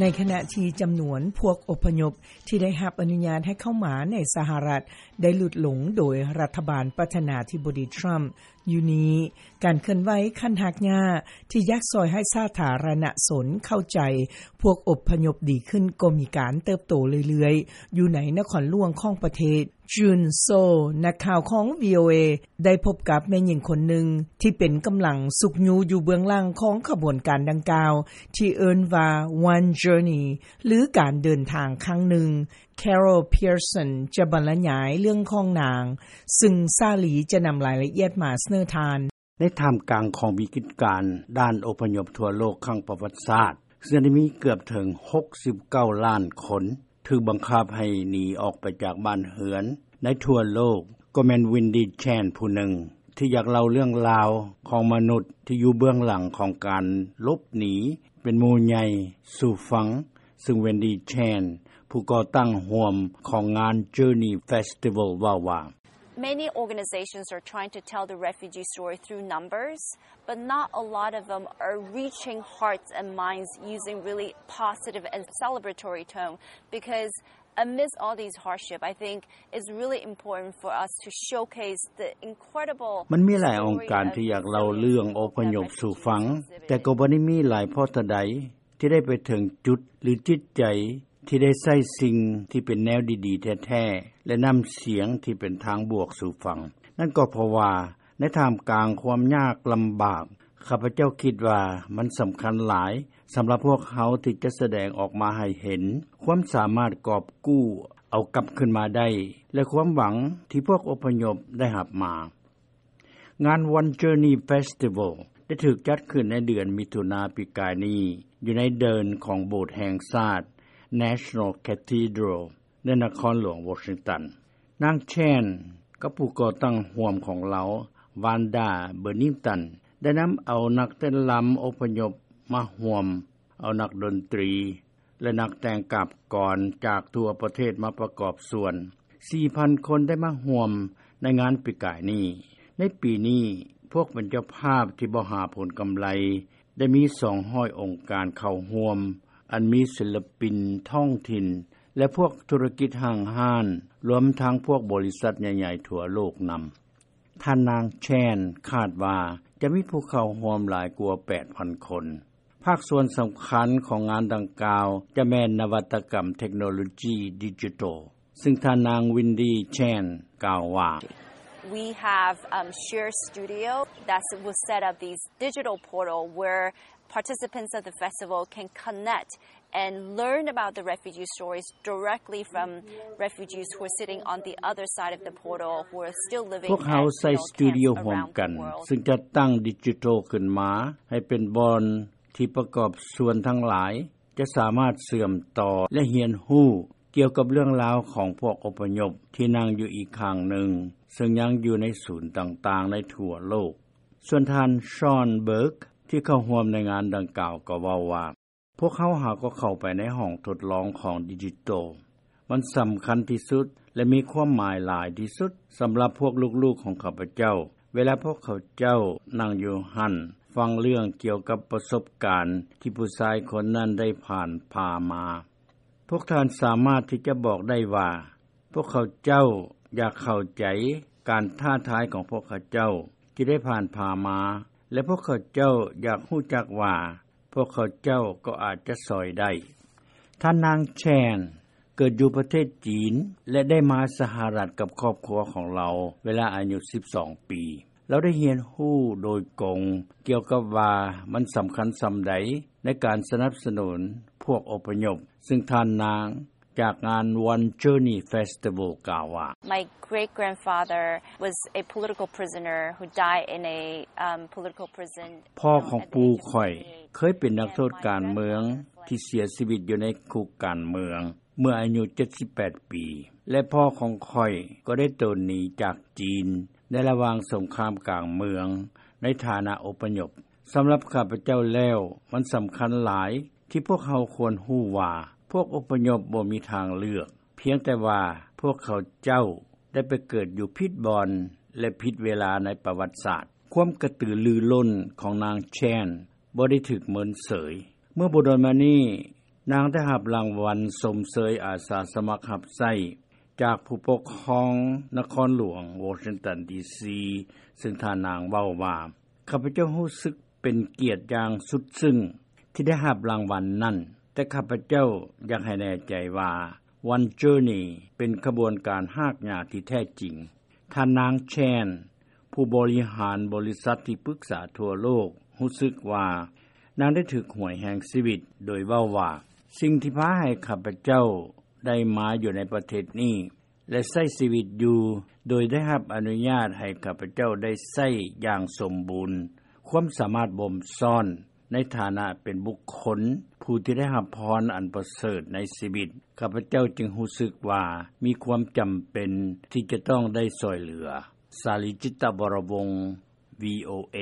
ໃນຂະນະທີ່ຈຳນວນພວກອົບພະຍົບທີ່ໄດ້ຮັບອະນຸຍາດໃຫ້ເຂົ້າມາໃນສະຫະລັດ ໄດ້ຫຼຸດລົງໂດຍລັດຖະບານປະທານາທິບໍດີທຣຳຢູ່ນີ້, ການເຄື່ອນໄຫວຂັ້ນຮາກຫຍ້າທີ່ຢາກຊ່ອຍໃຫ້ສາທາລະນະຊົນເຂົ້າໃຈພວກອົບພະຍົບດີຂຶ້ນກໍມີການເຕີບໂຕເລື້ອຍໆ ຢູ່ໃນນະຄອນຫຼວງຂອງປະເທດ. ຈືນໂຊ, ນັກຂ່າວຂອງ ວີໂອເອ ໄດ້ພົບກັບແມ່ຍິງຄົນໜຶ່ງທີ່ເປັນກຳລັງຊຸກຍູ້ຢູ່ເບື້ອງຫຼັງຂອງຂະບວນການດັ່ງກ່າວ ທີ່ເອີ້ນວ່າ One Journey ຫຼື ການເດີນທາງຄັ້ງໜຶ່ງ. ແຄໂຣລ ເພຍເຊິນ ຈະບັນລະຍາຍເລື່ອງຂອງນາງ, ຊຶ່ງສາລີຈະນຳລາຍລະອຽດມາສະເໜີທ່ານ. ໃນທ່າມກາງຂອງວິກິດການດ້ານອົບພະຍົບທົ່ວໂລກຄັ້ງປະຫວັດສາດ, ເຊິ່ງໄດ້ມີເກືອບເຖິງຫົກສິບເກົ້າລ້ານຄົນ ຖືກບັງຄັບໃຫ້ໜີອອກໄປຈາກບ້ານເຮືອນໃນທົ່ວໂລກ, ກໍແມ່ນ ວິນດີ ແຊນ ຜູ້ໜຶ່ງທີ່ຢາກເລົ່າເລື່ອງລາວຂອງມະນຸດທີ່ຢູ່ເບື້ອງຫຼັງຂອງການຫຼົບໜີເປັນໝູ່ໃຫຍ່ສູ່ຟັງ, ຊຶ່ງ ວິນດີ ແຊນ ຜູ້ກໍ່ຕັ້ງຮ່ວມຂອງງານ Journey Festival ເວົ້າວ່າ Many organizations are trying to tell the refugee story through numbers, but not a lot of them are reaching hearts and minds using really positive and celebratory tone, because amidst all these hardship, I think it's really important for us to showcase the incredible story of ມັນມີຫຼາຍອົງການທີ່ຢາກເລົ່າເລື່ອງອົບພະຍົບສູ່ຟັງ, ແຕ່ກໍບໍ່ໄດ້ມີຫຼາຍພໍເທົ່າໃດ ທີ່ໄດ້ໄປເຖິງຈຸດ ຫຼື ຈິດໃຈທີ່ໄດ້ໃຊ້ສິ່ງທີ່ເປັນແນວດີໆແທ້ໆ ແລະ ນ້ຳສຽງທີ່ເປັນທາງບວກສູ່ຟັງ. ນັ້ນກໍເພາະວ່າໃນທ່າມກາງຄວາມຍາກລຳບາກ, ຂ້າພະເຈົ້າຄິດວ່າມັນສຳຄັນຫຼາຍສຳລັບພວກເຮົາທີ່ຈະສະແດງອອກມາໃຫ້ເຫັນຄວາມສາມາດກອບກູ້ເອົາກັບຄືນມາໄດ້ ແລະ ຄວາມຫວັງທີ່ພວກອົບພະຍົບໄດ້ຮັບມາ. ງານ One Journey Festival ໄດ້ຖືກຈັດຂຶ້ນໃນເດືອນມິຖຸນາປີກາຍນີ້ ຢູ່ໃນເດີ່ນຂອງໂບດແຫ່ງຊາດ National Cathedral ໃນນະຄອນຫຼວງວໍຊິງຕັນ. ນາງ ແຊນ ກັບຜູ້ກໍ່ຕັ້ງຮ່ວມຂອງລາວ ວານດາ ເບີນິງຕັນ ໄດ້ນຳເອົານັກເຕັ້ນລຳອົບພະຍົບມາຮ່ວມ, ເອົານັກດົນຕີ ແລະ ນັກແຕ່ງກາບກອນຈາກທົ່ວປະເທດມາປະກອບສ່ວນ. ສີ່ພັນຄົນໄດ້ມາຮ່ວມໃນງານປີກາຍນີ້. ໃນປີນີ້, ພວກເປັນເຈົ້າພາບທີ່ບໍ່ຫາຜົນກຳໄລ ໄດ້ມີສອງຮ້ອຍອົງການເຂົ້າຮ່ວມ, ອັນມີສິນລະປິນທ້ອງຖິ່ນ ແລະ ພວກທຸລະກິດຫ້າງຮ້ານ, ລວມທັງພວກບໍລິສັດໃຫຍ່ໆທົ່ວໂລກນຳ. ທ່ານນາງ ແຊນ ຄາດວ່າຈະມີຜູ້ເຂົ້າຮ່ວມຫຼາຍກວ່າແປດພັນຄົນ. ພາກສ່ວນສຳຄັນຂອງງານດັ່ງກ່າວຈະແມ່ນນະວັດຕະກຳເທັກໂນໂລຈີດິຈິຕອລ, ຊຶ່ງທ່ານນາງ ວິນດີ ແຊນ ກ່າວວ່າ We have, um, shared studio that will set up these digital portal where participants of the festival can connect and learn about the refugee stories directly from refugees who are sitting on the other side of the portal, who are still living ພວກເຮົາໃຊ້ສະຕູດິໂອຮ່ວມກັນ ຊຶ່ງຈັດຕັ້ງດິຈິຕອລຂຶ້ນມາໃຫ້ເປັນບ່ອນທີ່ປະກອບສ່ວນທັງຫຼາຍຈະສາມາດເຊື່ອມຕໍ່ ແລະ ຮຽນຮູ້ກ່ຽວກັບເລື່ອງລາວຂອງພວກອົບພະຍົບທີ່ນັ່ງຢູ່ອີກຂ້າງໜຶ່ງ, ເຊິ່ງຍັງຢູ່ໃນສູນຕ່າງໆໃນທົ່ວໂລກ. ສ່ວນທ່ານ ຊອນ ເບີກ ທີ່ເຂົ້າຮ່ວມໃນງານດັ່ງກ່າວກໍເວົ້າວ່າ ພວກເຮົາຫາກໍເຂົ້າໄປໃນຫ້ອງທົດລອງຂອງດິຈິຕອລ. ມັນສຳຄັນທີ່ສຸດ ແລະ ມີຄວາມໝາຍຫຼາຍທີ່ສຸດສຳລັບພວກລູກໆຂອງຂ້າພະເຈົ້າ. ເວລາພວກເຂົາເຈົ້ານັ່ງຢູ່ຫັ້ນ ຟັງເລື່ອງກ່ຽວກັບປະສົບການທີ່ຜູ້ຊາຍຄົນນັ້ນໄດ້ຜ່ານຜ່າມາ, ພວກທ່ານສາມາດທີ່ຈະບອກໄດ້ວ່າ ພວກເຂົາເຈົ້າຢາກເຂົ້າໃຈການທ້າທາຍຂອງພວກເຂົາເຈົ້າທີ່ໄດ້ຜ່ານຜ່າມາ ແລະ ພວກເຂົາເຈົ້າຢາກຮູ້ຈັກວ່າ ພວກເຂົາເຈົ້າກໍອາດຈະຊ່ອຍໄດ້. ທ່ານນາງ ແຊນ ເກີດຢູ່ປະເທດຈີນ ແລະ ໄດ້ມາສະຫະລັດກັບຄອບຄົວຂອງລາວເວລາອາຍຸສິບສອງປີ. ລາວໄດ້ຮຽນຮູ້ໂດຍກົງກ່ຽວກັບວ່າມັນສຳຄັນສ່ຳໃດໃນການສະໜັບສະໜູນພວກອົບພະຍົບ, ຊຶ່ງທ່ານນາງ ຈາກງານ One Journey Festival ກ່າວວ່າ My great grandfather was a political prisoner who died in a, um, political prison. ພໍ່ຂອງປູ່ຂ້ອຍເຄີຍເປັນນັກໂທດການເມືອງທີ່ເສຍຊີວິດຢູ່ໃນຄຸກການເມືອງເມື່ອອາຍຸເຈັດສິບແປດປີ ແລະ ພໍ່ຂອງຂ້ອຍກໍໄດ້ໂຕນໜີຈາກຈີນໃນລະຫວ່າງສົງຄາມກາງເມືອງໃນຖານະອົບພະຍົບ. ສຳລັບຂ້າພະເຈົ້າແລ້ວ, ມັນສຳຄັນຫຼາຍ ທີ່ພວກເຮົາຄວນຮູ້ວ່າ ພວກອົບພະຍົບບໍ່ມີທາງເລືອກ, ພຽງແຕ່ວ່າພວກເຂົາເຈົ້າໄດ້ໄປເກີດຢູ່ຜິດບ່ອນ ແລະ ຜິດເວລາໃນປະຫວັດສາດ. ຄວາມກະຕືລືລົ້ນຂອງນາງ ແຊນ ບໍ່ໄດ້ຖືກເມີນເສີຍ. ເມື່ອບໍ່ດົນມານີ້, ນາງໄດ້ຮັບລາງວັນຊົມເຊີຍອາສາສະໝັກຮັບໃຊ້ ຈາກຜູ້ປົກຄອງນະຄອນຫຼວງວໍຊິງຕັນ ດີຊີ ຊຶ່ງທ່ານນາງເວົ້າວ່າ: "ຂ້າພະເຈົ້າຮູ້ສຶກເປັນກຽດຢ່າງສຸດຊຶ້ງ ທີ່ໄດ້ຮັບລາງວັນນັ້ນ ແຕ່ຂ້າພະເຈົ້າຢາກໃຫ້ແນ່ໃຈວ່າ One Journey ເປັນຂະບວນການຮາກຫຍ້າທີ່ແທ້ຈິງ." ທ່ານນາງ Chen ຜູ້ບໍລິຫານບໍລິສັດທີ່ປຶກສາທົ່ວໂລກ ຮູ້ສຶກວ່ານາງໄດ້ຖືກຫວຍແຫ່ງຊີວິດ ໂດຍເວົ້າວ່າ: "ສິ່ງທີ່ພາໃຫ້ຂ້າພະເຈົ້າໄດ້ມາຢູ່ໃນປະເທດນີ້ ແລະ ໃຊ້ຊີວິດຢູ່ ໂດຍໄດ້ຮັບອະນຸຍາດໃຫ້ຂ້າພະເຈົ້າໄດ້ໃຊ້ຢ່າງສົມບູນ ຄວາມສາມາດບົ່ມຊ້ອນ ໃນຖານະເປັນບຸກຄົນຜູ້ທີ່ໄດ້ຮັບພອນອັນປະເສີດໃນຊີວິດ ຂ້າພະເຈົ້າຈຶ່ງຮູ້ສຶກວ່າ ມີຄວາມຈຳເປັນທີ່ຈະຕ້ອງໄດ້ຊ່ອຍເຫຼືອ." ສາລີ ຈິດຕະວໍລະວົງ ວີໂອເອ.